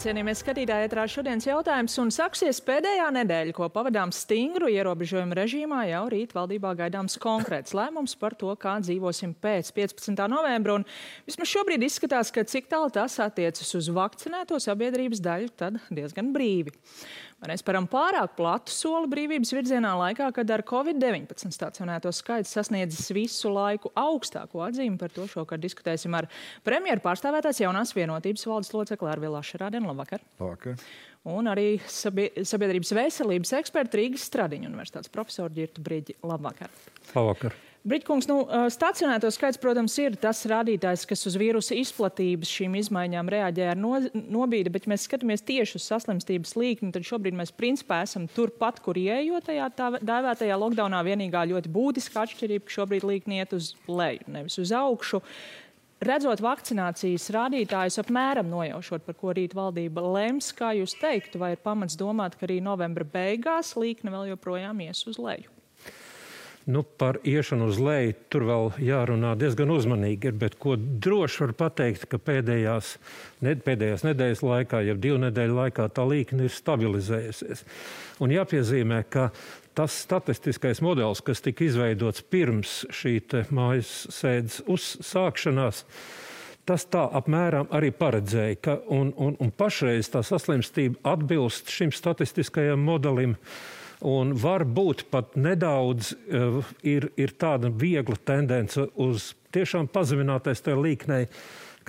Cienījamies skatītāji, ētrā šodienas jautājums un sāksies pēdējā nedēļa, ko pavadām stingru ierobežojumu režīmā. Jau rīt valdībā gaidāms konkrēts lēmums par to, kā dzīvosim pēc 15. novembra. Un vismaz šobrīd izskatās, ka cik tālu tas attiecas uz vakcinēto sabiedrības daļu, tad diezgan brīvi. Mēs param pārāk platu soli brīvības virzienā laikā, kad ar Covid-19 stacionēto skaits sasniedzis visu laiku augstāko atzīmi. Par to šokar diskutēsim ar premjeru pārstāvētās jaunās vienotības valdes locekli Arvilu Ašerādeni. Labvakar. Labvakar. Un arī sabiedrības veselības eksperti Rīgas Stradiņu universitātes profesoru Ģirtu Briģi. Labvakar. Labvakar. Briģkungs, stacionēto skaits, protams, ir tas rādītājs, kas uz vīrusa izplatības šīm izmaiņām reaģē ar nobīdi, bet mēs skatāmies tieši uz saslimstības līkni, tad šobrīd mēs principā esam turpat, kur ieejot tajā tā dēvētajā lockdownā. Vienīgā ļoti būtiska atšķirība, ka šobrīd līkni iet uz leju, nevis uz augšu. Redzot vakcinācijas rādītājus, apmēram nojaušot, par ko rīt valdība lems, kā jūs teiktu, vai ir pamats domāt, ka arī novembra beigās līkne vēl joprojām ies uz leju? Par iešanu uz leju tur vēl jārunā diezgan uzmanīgi, bet ko droši var pateikt, ka pēdējās nedēļas laikā, jau 2 nedēļu laikā tā līkne ir stabilizējusies. Un jāpiezīmē, ka tas statistiskais modelis, kas tika izveidots pirms šī mājas sēdes uzsākšanās, tas tā apmēram arī paredzēja, ka un pašreiz tā saslimstība atbilst šim statistiskajam modelim. Un varbūt pat nedaudz ir tāda viegla tendence uz tiešām pazeminātais tajā līknei,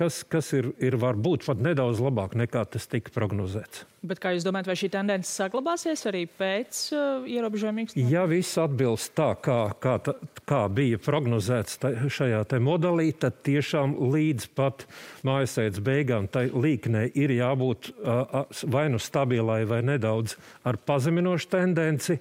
kas ir varbūt pat nedaudz labāk nekā tas tika prognozēts. Bet kā jūs domājat, vai šī tendence saglabāsies arī pēc ierobežojuma īstenībā? Ja viss atbilst tā, kā bija prognozēts šajā modelī, tad tiešām līdz pat mājasēdes beigām tai līknei ir jābūt vai nu stabilai vai nedaudz ar pazeminošu tendenci.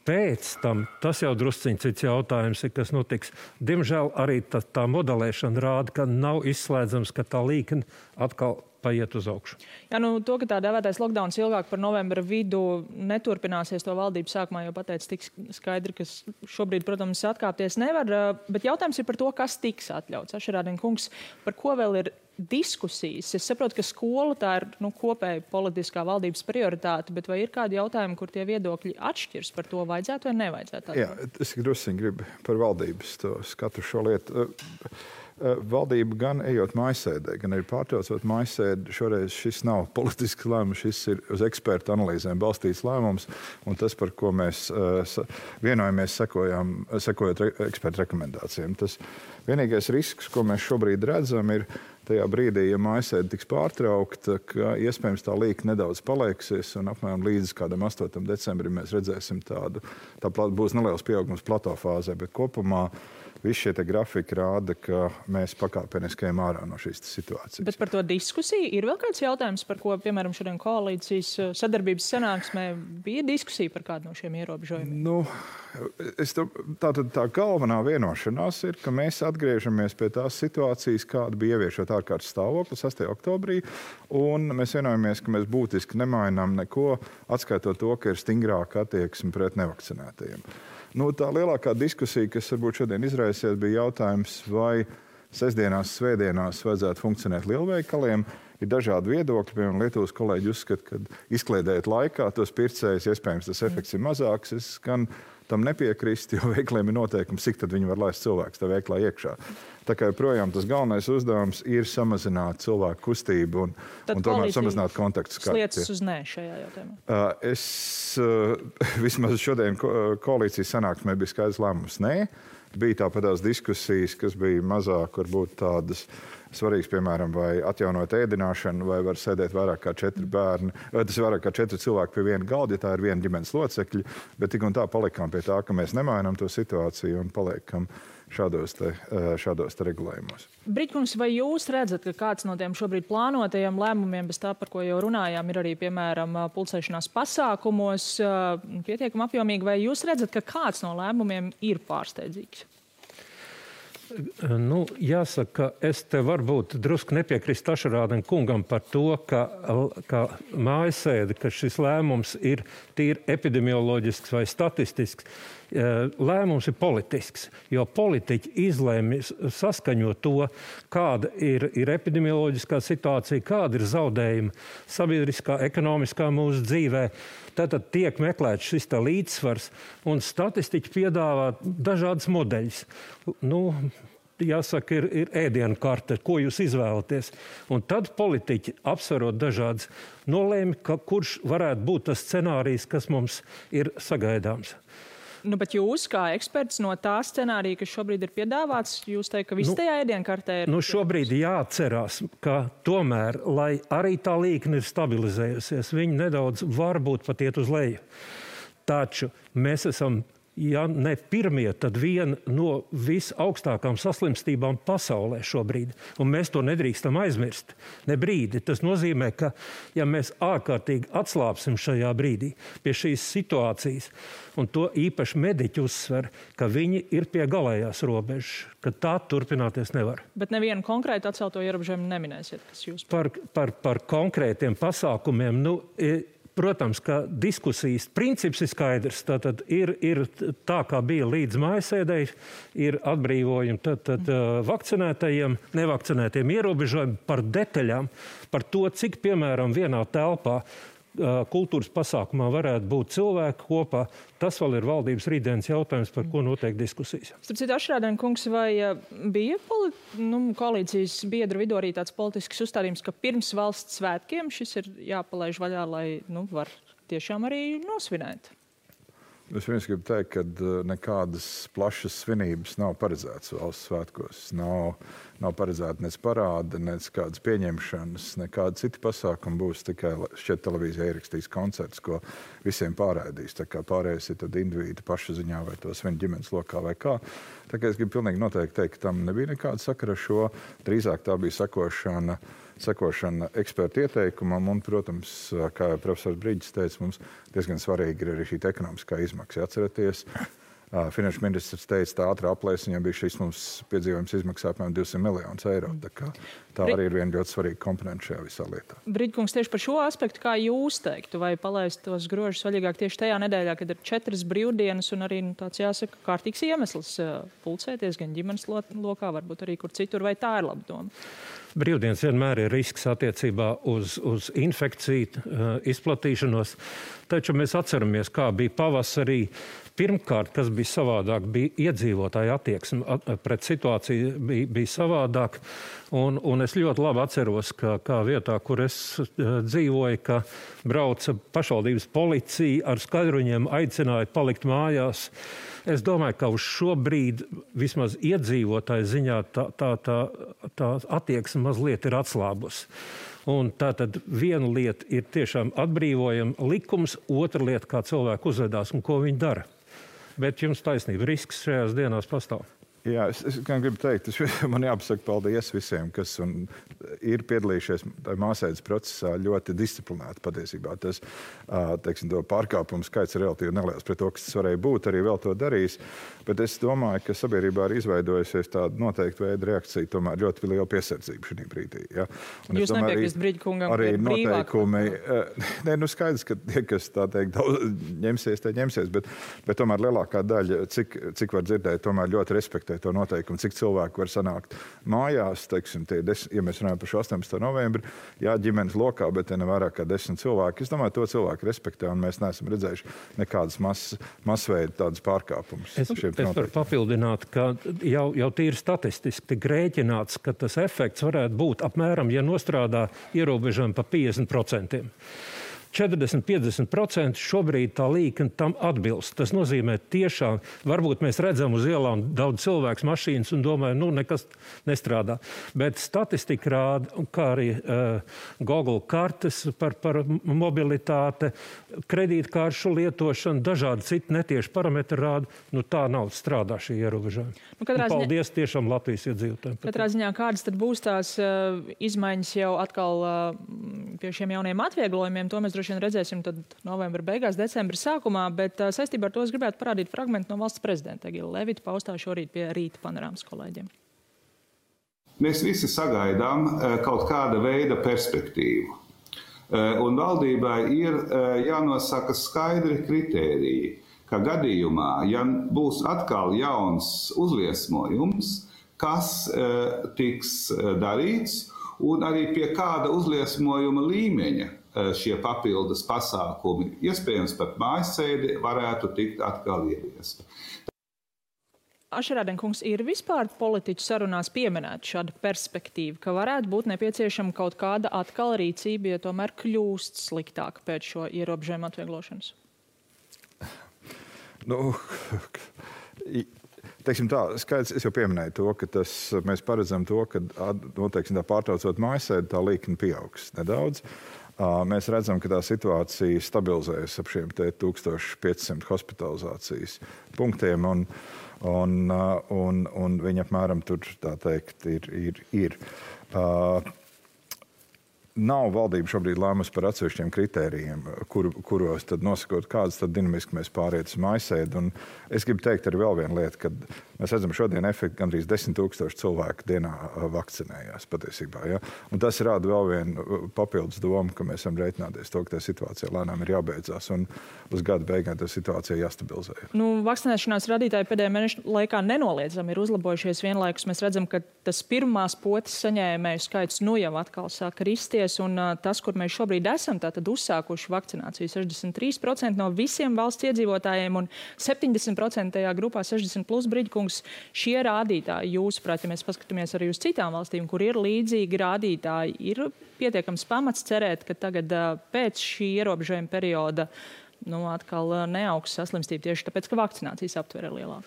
Pēc tam, tas jau drusciņ cits jautājums ir, kas notiks. Diemžēl arī tā modelēšana rāda, ka nav izslēdzams, ka tā līkne atkal paiet uz augšu. Jā, to, ka tā dēvētais lockdowns ilgāk par novembra vidu neturpināsies, to valdība sākumā jau pateica tik skaidri, ka šobrīd, protams, atkāpties nevar. Bet jautājums ir par to, kas tiks atļauts. Ašerādeni kungs, par ko vēl ir diskusijas? Es saprotu, ka skola tā ir kopēja politiskā valdības prioritāte, bet vai ir kādi jautājumi, kur tie viedokļi atšķirs par to vajadzētu vai nevajadzētu? Jā, es drusciņi gribu par valdības to skatu šo lietu. Valdība gan ejot mājasēdē, gan arī pārtraucot mājasēdi, šoreiz šis nav politisks lēmums, šis ir uz ekspertu analīzēm balstīts lēmums, un tas, par ko mēs vienojamies, sekojot ekspertu rekomendācijām. Tas vienīgais risks, ko mēs šobrīd redzam, ir tajā brīdī, ja mājasēde tiks pārtraukta, ka iespējams tā līkne nedaudz palieksies, un apmēram līdz kādam 8. decembrim mēs redzēsim tā būs neliels pieaugums plato fāzē, bet kopumā visi šie grafiki rāda, ka mēs pakāpeniski ejam ārā no šīs situācijas. Bet par to diskusiju ir vēl kāds jautājums, par ko, piemēram, šodien koalīcijas sadarbības sanāksmē bija diskusija par kādu no šiem ierobežojumiem? Tā galvenā vienošanās ir, ka mēs atgriežamies pie tās situācijas, kāda bija ieviešot ārkārtas stāvokli 6. oktobrī, un mēs vienojamies, ka mēs būtiski nemainām neko, atskaitot to, ka ir stingrāka attieksme pret nevakcinētajiem. Tā lielākā diskusija, kas varbūt šodien izraisies, bija jautājums, vai sestdienās, svētdienās vajadzētu funkcionēt lielveikaliem. Ir dažādi viedokļi, piemēram, Lietuvas kolēģi uzskata, ka izkliedējot laikā tos pircējus, iespējams, tas efekts ir mazāks. Es gan tam nepiekrist, jo veikaliem ir noteikums, cik tad viņi var laist cilvēkus tā veiklā iekšā. Tā kā joprojām tas galvenais uzdevums ir samazināt cilvēku kustību un tomēr samazināt kontaktu skaitu. Sliecas uz nē šajā jautājumā? Vismaz šodien koalīcijas sanāksmē bija skaidrs lēmums nē. Bija tāpatās diskusijas, kas bija mazāk varbūt tādas svarīgas, piemēram, vai atjaunot ēdināšanu, vai var sēdēt vairāk kā 4 bērni. Tas ir vairāk kā 4 cilvēki pie viena galda, ja tā ir viena ģimenes locekļi, bet tik un tā palikām pie tā, ka mēs nemainām to situāciju un paliekam šādos te regulējumos. Briģkungs, vai jūs redzat, ka kāds no tiem šobrīd plānotajiem lēmumiem, bez tā, par ko jau runājām, ir arī, piemēram, pulcēšanās pasākumos pietiekami apjomīgi, vai jūs redzat, ka kāds no lēmumiem ir pārsteidzīgs? Jāsaka, es te varbūt drusku nepiekrist Tašarādam kungam par to, ka mājasēde, ka šis lēmums ir tīri epidemioloģisks vai statistisks. Lēmums ir politisks, jo politiķi izlēma saskaņot to, kāda ir epidemioloģiskā situācija, kāda ir zaudējuma sabiedriskā, ekonomiskā mūsu dzīvē. Tātad tiek meklēts šis līdzsvars, un statistiķi piedāvā dažādas modeļus. Jāsaka, ir ēdienu karte, ko jūs izvēlaties. Un tad politiķi, apsverot dažādas, nolēma, kurš varētu būt tas scenārijs, kas mums ir sagaidāms. Bet jūs, kā eksperts no tā scenārija, kas šobrīd ir piedāvāts, jūs teikt, ka viss tajā ēdienkartē ir... Šobrīd jāatcerās, ka tomēr, lai arī tā līkne ir stabilizējusies, viņi nedaudz varbūt pat iet uz leju. Taču mēs esam, ja ne pirmie, tad viena no visaugstākām saslimstībām pasaulē šobrīd. Un mēs to nedrīkstam aizmirst. Ne brīdi. Tas nozīmē, ka ja mēs ārkārtīgi atslāpsim šajā brīdī pie šīs situācijas, un to īpaši mediķi uzsver, ka viņi ir pie galējās robežas, ka tā turpināties nevar. Bet nevienu konkrētu atcelto ierobežojumu neminēsiet, kas jūs... Par konkrētiem pasākumiem, protams, ka diskusijas princips ir skaidrs. Tātad ir tā, kā bija līdz mājasēdēji, ir atbrīvojumi tad vakcinētajiem, nevakcinētiem ierobežojumi par detaļām, par to, cik, piemēram, vienā telpā kultūras pasākumā varētu būt cilvēki kopā. Tas vēl ir valdības rītdienas jautājums, par ko notiek diskusijas. Starp citu, Tašarādam kungs, vai bija koalīcijas biedru vidū arī tāds politisks uzstādījums, ka pirms valsts svētkiem šis ir jāpalaiž vaļā, lai var tiešām arī nosvinēt? Es vienkārši gribu teikt, ka nekādas plašas svinības nav paredzētas valsts svētkos. Nav paredzēta nec parāda, nec kādas pieņemšanas, nekāda cita pasākuma būs. Tikai šķiet televīzija ierakstīs koncerts, ko visiem pārraidīs. Tā kā pārējais ir tad indivīdi paša ziņā vai tos viņa ģimenes lokā vai kā. Tā kā es gribu pilnīgi noteikti teikt, ka tam nebija nekāda sakara ar šo. Drīzāk tā bija sekošana ekspertu ieteikumam un, protams, kā profesors Brīģis teica, mums diezgan svarīgi ir arī šī ekonomiskā izmaksa. Atceraties, finanšu ministrs teica, tā ātrā aplēs, viņam bija šis mums piedzīvojums izmaksā apmēram 200 miljonus eiro. Tā arī ir viena ļoti svarīga komponenta šajā visā lietā. Brīģkungs, tieši par šo aspektu, kā jūs teiktu, vai palaist tos grožus vaļīgāk tieši tajā nedēļā, kad ir 4 brīvdienas un arī tāds, jāsaka, kārtīgs iemesls pulcēties gan ģimenes lokā, varbūt arī kur citur, vai tā ir laba doma? Brīvdienas vienmēr ir risks attiecībā uz infekciju izplatīšanos, taču mēs atceramies, kā bija pavasarī. Pirmkārt, kas bija savādāk, bija iedzīvotāja attieksme pret situāciju bija savādāk. Un es ļoti labi atceros, ka kā vietā, kur es dzīvoju, ka brauca pašvaldības policija ar skaidruņiem, aicināja palikt mājās. Es domāju, ka uz šo brīdi vismaz iedzīvotāju ziņā tā attieksme mazliet ir atslābusi. Un tātad viena lieta ir tiešām atbrīvojama likums, otra lieta, kā cilvēki uzvedās un ko viņi dara. Bet jums taisnība, risks šajās dienās pastāv. Jā, es gribu teikt, man jāpasaka paldies visiem, kas ir piedalījušies māsēdes procesā ļoti disciplinēti patiesībā. Tas, teiksim, to pārkāpumu skaits ir relatīvi neliels pret to, kas tas varēja būt, arī vēl to darījis. Bet es domāju, ka sabiedrībā ir izveidojusies tāda noteikta veida reakcija, tomēr ļoti liela piesardzība šī brīdī. Ja? Jūs nepiekrist Brīģkungam, arī ka noteikumi, skaidrs, ka tie, kas tā teikt, ņemsies, bet tomēr lielākā daļa, cik var dzirdēt, tomēr ļoti respektē to noteikumu, cik cilvēku var sanākt mājās, teiksim, ja mēs runājam par 18. novembri, jā, ģimenes lokā, bet te nevairāk kā 10 cilvēki. Es domāju, to cilvēku respektē, un mēs neesam redzējuši nekādas masveida tādas pārkāpumus. Es varu papildināt, ka jau tīri statistiski tik rēķināts, ka tas efekts varētu būt apmēram, ja nostrādā ierobežojumi pa 50%. 40–50% šobrīd tā līkne tam atbilst. Tas nozīmē tiešām, varbūt mēs redzam uz ielām daudz cilvēks mašīnas un domājam, nekas nestrādā. Bet statistika rāda, kā arī Google kartes par mobilitāte, kredītkāršu lietošanu, dažādi citi netieši parametri rāda, tā nav strādā šī ierobežojuma. Paldies tiešām Latvijas iedzīvotājiem. Katrā ziņā kādas tad būs tās izmaiņas jau atkal pie šiem jauniem atvieglojumiem, to mēs droši droši vien redzēsim tad novembra beigās, decembra sākumā, bet saistībā ar to es gribētu parādīt fragmentu no valsts prezidenta Egila Levita paustā šorīt pie Rīta panorāmas kolēģiem. Mēs visi sagaidām kaut kāda veida perspektīvu. Un valdībai ir jānosaka skaidri kritēriji, ka gadījumā, ja būs atkal jauns uzliesmojums, kas tiks darīts un arī pie kāda uzliesmojuma līmeņa šie papildus pasākumi, iespējams pat mājasēdi, varētu tikt atkal ieviesti. Ašerādenkungs, ir vispār politiķu sarunās pieminēta šāda perspektīva, ka varētu būt nepieciešama kaut kāda atkal rīcība, ja tomēr kļūst sliktāka pēc šo ierobežojumu atvieglošanas? Teiksim tā, skaidrs, es jau pieminēju to, ka mēs paredzam to, ka teiksim, pārtraucot mājasēdi, tā līkne pieaugs nedaudz. Mēs redzam, ka tā situācija stabilizējas ap šiem 1500 hospitalizācijas punktiem, un viņi apmēram tur, tā teikt, ir. Nav valdība šobrīd lēmusi par atsevišķiem kritērijiem, kuros tad nosakot, kādas tad dinamiski mēs pāriet uz mājasēdi. Un es gribu teikt arī vēl vienu lietu, kad mēs redzam šodien efektu gandrīz 10 000 cilvēku dienā vakcinējās patiesībā. Ja? Un tas rāda vēl vienu papildus domu, ka mēs varam rēķināties to, ka tā situācija lēnām ir jābeidzās un uz gada beigām tā situācija jāstabilizē. Vakcinēšanās radītāji pēdējā mēneša laikā nenoliedzami ir uzlabojušies vienlaikus. Mēs redzam, ka tas pirmās potes saņēmēju skaits jau atkal sāk risties. Un tas, kur mēs šobrīd esam, tātad uzsākuši vakcināciju 63% no visiem valsts iedzīvotājiem un 70% tajā grupā 60+ Briģkungs, šie rādītāji, jūsuprāt, ja mēs paskatāmies arī uz citām valstīm, kur ir līdzīgi rādītāji, ir pietiekams pamats cerēt, ka tagad pēc šī ierobežojuma perioda atkal neaugs saslimstība tieši tāpēc, ka vakcinācijas aptvere ir lielāka.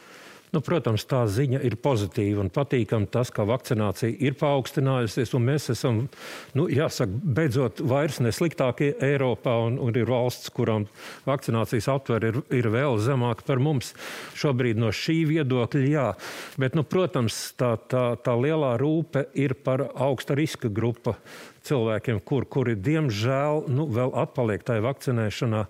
Protams, tā ziņa ir pozitīva un patīkama tas, ka vakcinācija ir paaugstinājusies, un mēs esam, jāsaka, beidzot vairs nesliktākie Eiropā, un ir valsts, kurām vakcinācijas aptvere ir vēl zemāka par mums. Šobrīd no šī viedokļa, jā. Bet, protams, tā lielā rūpe ir par augsta riska grupa cilvēkiem, kuri diemžēl vēl atpaliek tajā vakcinēšanā.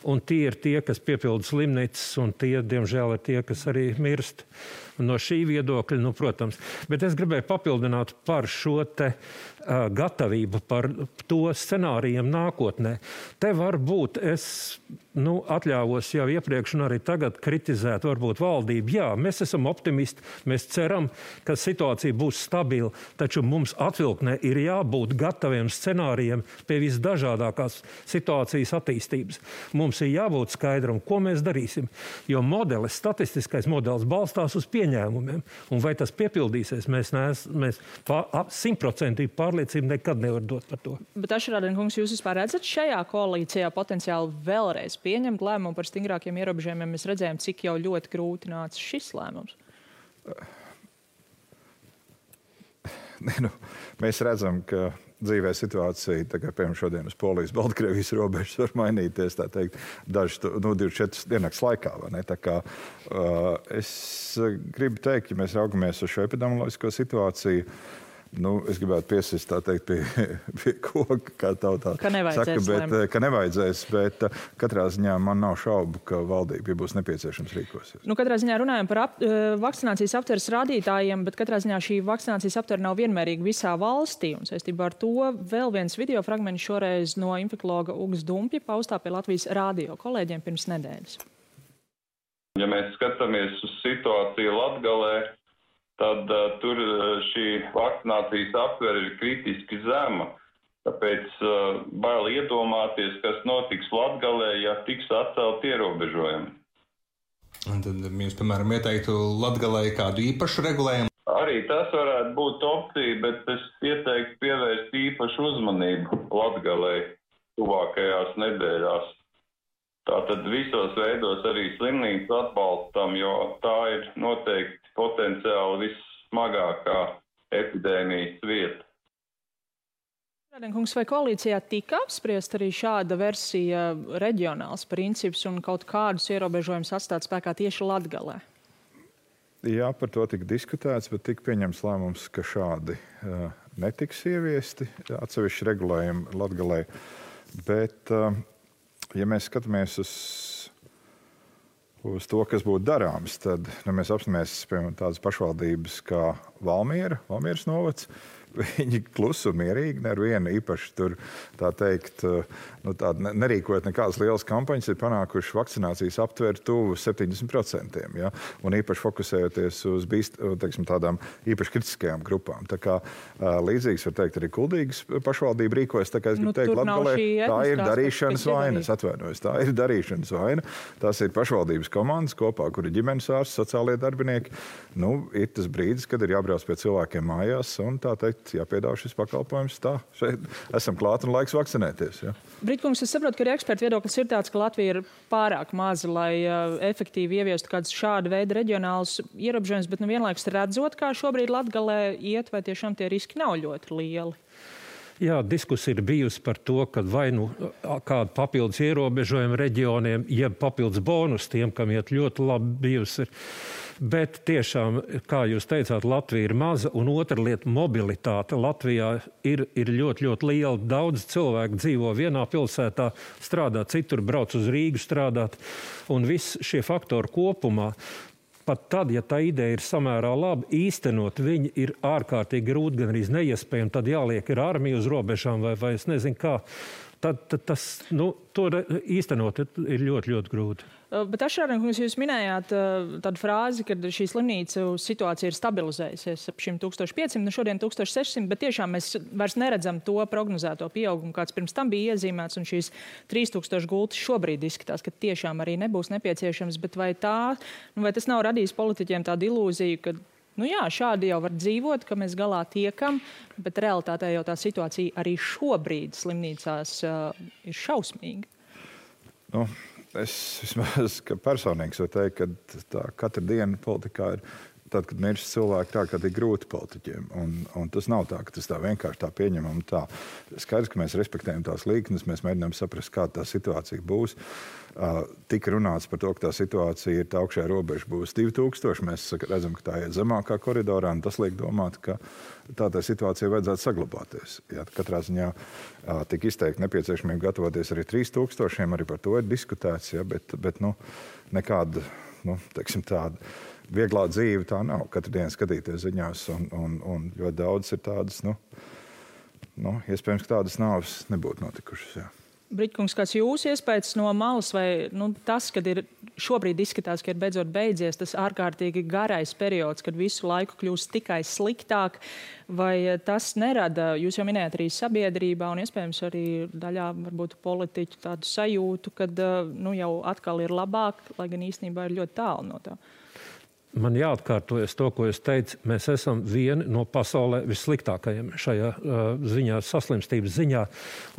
Un tie ir tie, kas piepilda slimnīcas, un tie, diemžēl, ir tie, kas arī mirst. No šī viedokļa, protams. Bet es gribēju papildināt par šo te gatavību, par to scenārijiem nākotnē. Te varbūt es atļāvos jau iepriekš un arī tagad kritizēt varbūt valdību. Jā, mēs esam optimisti, mēs ceram, ka situācija būs stabila, taču mums atvilknē ir jābūt gataviem scenārijiem pie visdažādākās situācijas attīstības. Mums ir jābūt skaidram, ko mēs darīsim, jo statistiskais modelis balstās uz pieņēmumiem. Un vai tas piepildīsies, mēs 100% pārliecību nekad nevar dot par to. Bet Ašerādenkungs, jūs vispār redzat šajā koalīcijā potenciāli vēlreiz pieņemt lēmumu par stingrākiem ierobežojumiem? Mēs redzējām, cik jau ļoti grūti nāca šis lēmums. Mēs redzam, ka dzīvē situācija, piemēram, šodien uz Polijas-Baltkrievijas robežas var mainīties, tā teikt, 24 diennakts laikā. Vai ne? Tā kā es gribu teikt, ja mēs raugamies uz šo epidemioloģisko situāciju, es gribētu piesist, tā teikt, pie koka, kā tautā saka, ka nevajadzēs, bet katrā ziņā man nav šaubu, ka valdība būs nepieciešams rīkosies. Katrā ziņā runājam par vakcinācijas aptveres rādītājiem, bet katrā ziņā šī vakcinācijas aptvere nav vienmērīga visā valstī. Un saistībā ar to vēl viens video fragments šoreiz no infekologa Ugas Dumpja paustā pie Latvijas rādio kolēģiem pirms nedēļas. Ja mēs skatāmies uz situāciju Latgalē, tad tur šī vakcinācijas aptvere ir kritiski zema. Tāpēc bail iedomāties, kas notiks Latgalē, ja tiks atcelt ierobežojumi. Un tad jūs, piemēram, ieteiktu Latgalē kādu īpašu regulējumu? Arī tas varētu būt opcija, bet es ieteiktu pievērst īpašu uzmanību Latgalē tuvākajās nedēļās. Tātad visos veidos arī slimnīcu atbalstam, jo tā ir noteikti potenciāli vissmagākā epidēmijas vieta. Kungs, vai koalīcijā tika apspriest arī šāda versija reģionāls princips un kaut kādus ierobežojumus atstāt spēkā tieši Latgalē? Jā, par to tika diskutēts, bet tika pieņemts lēmums, ka šādi netiks ieviesti atsevišķi regulējumi Latgalē. Bet, ja mēs skatāmies uz to, kas būtu darāms, tad mēs apstāmies, piemēram, tādas pašvaldības kā Valmieras novads. Viņi klusi un mierīgi, nevienu īpaši tur, tā teikt, nerīkojot nekādas lielas kampaņas, ir panākuši vakcinācijas aptvērt tuvu 70%, ja? Un īpaši fokusējoties uz tādām īpaši kritiskajām grupām. Tā kā līdzīgs, var teikt, arī Kuldīgas pašvaldība rīkojas, tā kā es gribu teikt, Latgalē, tā ir darīšanas vaina, es atvainojos, tā ir darīšanas vaina. Tās ir pašvaldības komandas kopā, kur ir ģimenes ārsts, sociālie darbinieki. Ir tas brīdis, kad ir jābrauc pie cilvēkiem mājās un tā teikt, jāpiedāvā šis pakalpojums. Tā, šeit esam klāt un laiks vakcinēties. Ja. Britkungs, es saprotu, ka arī ekspertu viedoklis ir tāds, ka Latvija ir pārāk maza, lai efektīvi ieviestu kādus šāda veida reģionālus ierobežojumus, bet vienlaikus redzot, kā šobrīd Latgalē iet, vai tiešām tie riski nav ļoti lieli. Jā, diskusija ir bijusi par to, ka vai kādu papildus ierobežojumu reģioniem, jeb papildus bonus tiem, kam iet ļoti labi bijusi. Bet tiešām, kā jūs teicāt, Latvija ir maza, un otra lieta - mobilitāte. Latvijā ir ļoti, ļoti liela. Daudz cilvēku dzīvo vienā pilsētā, strādā citur, brauc uz Rīgu strādāt, un viss šie faktori kopumā. Pat tad, ja tā ideja ir samērā laba, īstenot viņi ir ārkārtīgi grūti, gan arī neiespējami. Tad jāliek ir armija uz robežām vai es nezinu kā. Tad tas, to īstenot ir ļoti, ļoti grūti. Bet Ašrānkungs, jūs minējāt tādu frāzi, ka šī slimnīcu situācija ir stabilizējusies ap šim 1500, šodien 1600, bet tiešām mēs vairs neredzam to prognozēto pieaugumu, kāds pirms tam bija iezīmēts, un šīs 3000 gultas šobrīd izskatās, ka tiešām arī nebūs nepieciešams, bet vai tas nav radījis politiķiem tādu ilūziju, ka šādi jau var dzīvot, ka mēs galā tiekam, bet realitātē jau tā situācija arī šobrīd slimnīcās ir šausmīga. Es vismaz personīgi varu teikt, ka tā katra diena politikā ir tad, kad mirst cilvēki, tā kā tik grūti politiķiem. Un tas nav tā, ka tas tā vienkārši tā pieņemam. Tā. Skaidrs, ka mēs respektējam tās līknes, mēs mēģinām saprast, kāda tā situācija būs. Tika runāts par to, ka tā situācija ir tā augšējā robeža būs 2000. Mēs redzam, ka tā iet zemākā koridorā, un tas liek domāt, ka tā situācija vajadzētu saglabāties. Ja, katrā ziņā tika izteikti nepieciešamība gatavoties arī 3000, arī par to ir diskutēts, ja, bet nekāda, teiksim, tāda vieglā dzīve tā nav. Katru dienu skatīties ziņās, un ļoti daudz ir tādas, iespējams, ka tādas nāves nebūtu notikušas. Jā. Britkungs, kāds jūsu iespējas no malas, vai tas, kad ir šobrīd izskatās, ka ir beidzot beidzies tas ārkārtīgi garais periods, kad visu laiku kļūst tikai sliktāk, vai tas nerada, jūs jau minējat arī sabiedrībā un iespējams arī daļā varbūt politiķu tādu sajūtu, kad jau atkal ir labāk, lai gan īstenībā ir ļoti tālu no tā? Man jāatkārtojas to, ko es teicu. Mēs esam vieni no pasaulē vissliktākajiem šajā ziņā, saslimstības ziņā.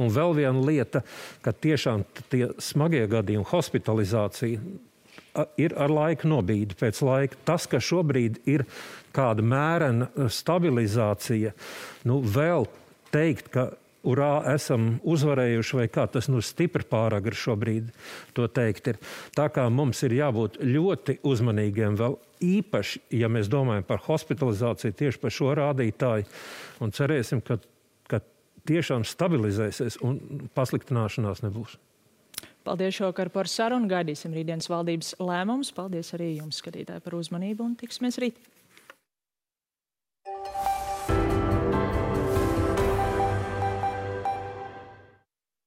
Un vēl viena lieta, ka tiešām tie smagie gadījumi, hospitalizācija ir ar laiku nobīdi pēc laika. Tas, ka šobrīd ir kāda mērena stabilizācija, vēl teikt, ka urā, esam uzvarējuši, vai kā tas stipri pāragri šobrīd to teikt ir. Tā kā mums ir jābūt ļoti uzmanīgiem vēl īpaši, ja mēs domājam par hospitalizāciju tieši par šo rādītāju, un cerēsim, ka tiešām stabilizēsies un pasliktināšanās nebūs. Paldies šovakar par sarunu, gaidīsim rītdienas valdības lēmumus. Paldies arī jums, skatītāji, par uzmanību un tiksimies rīt.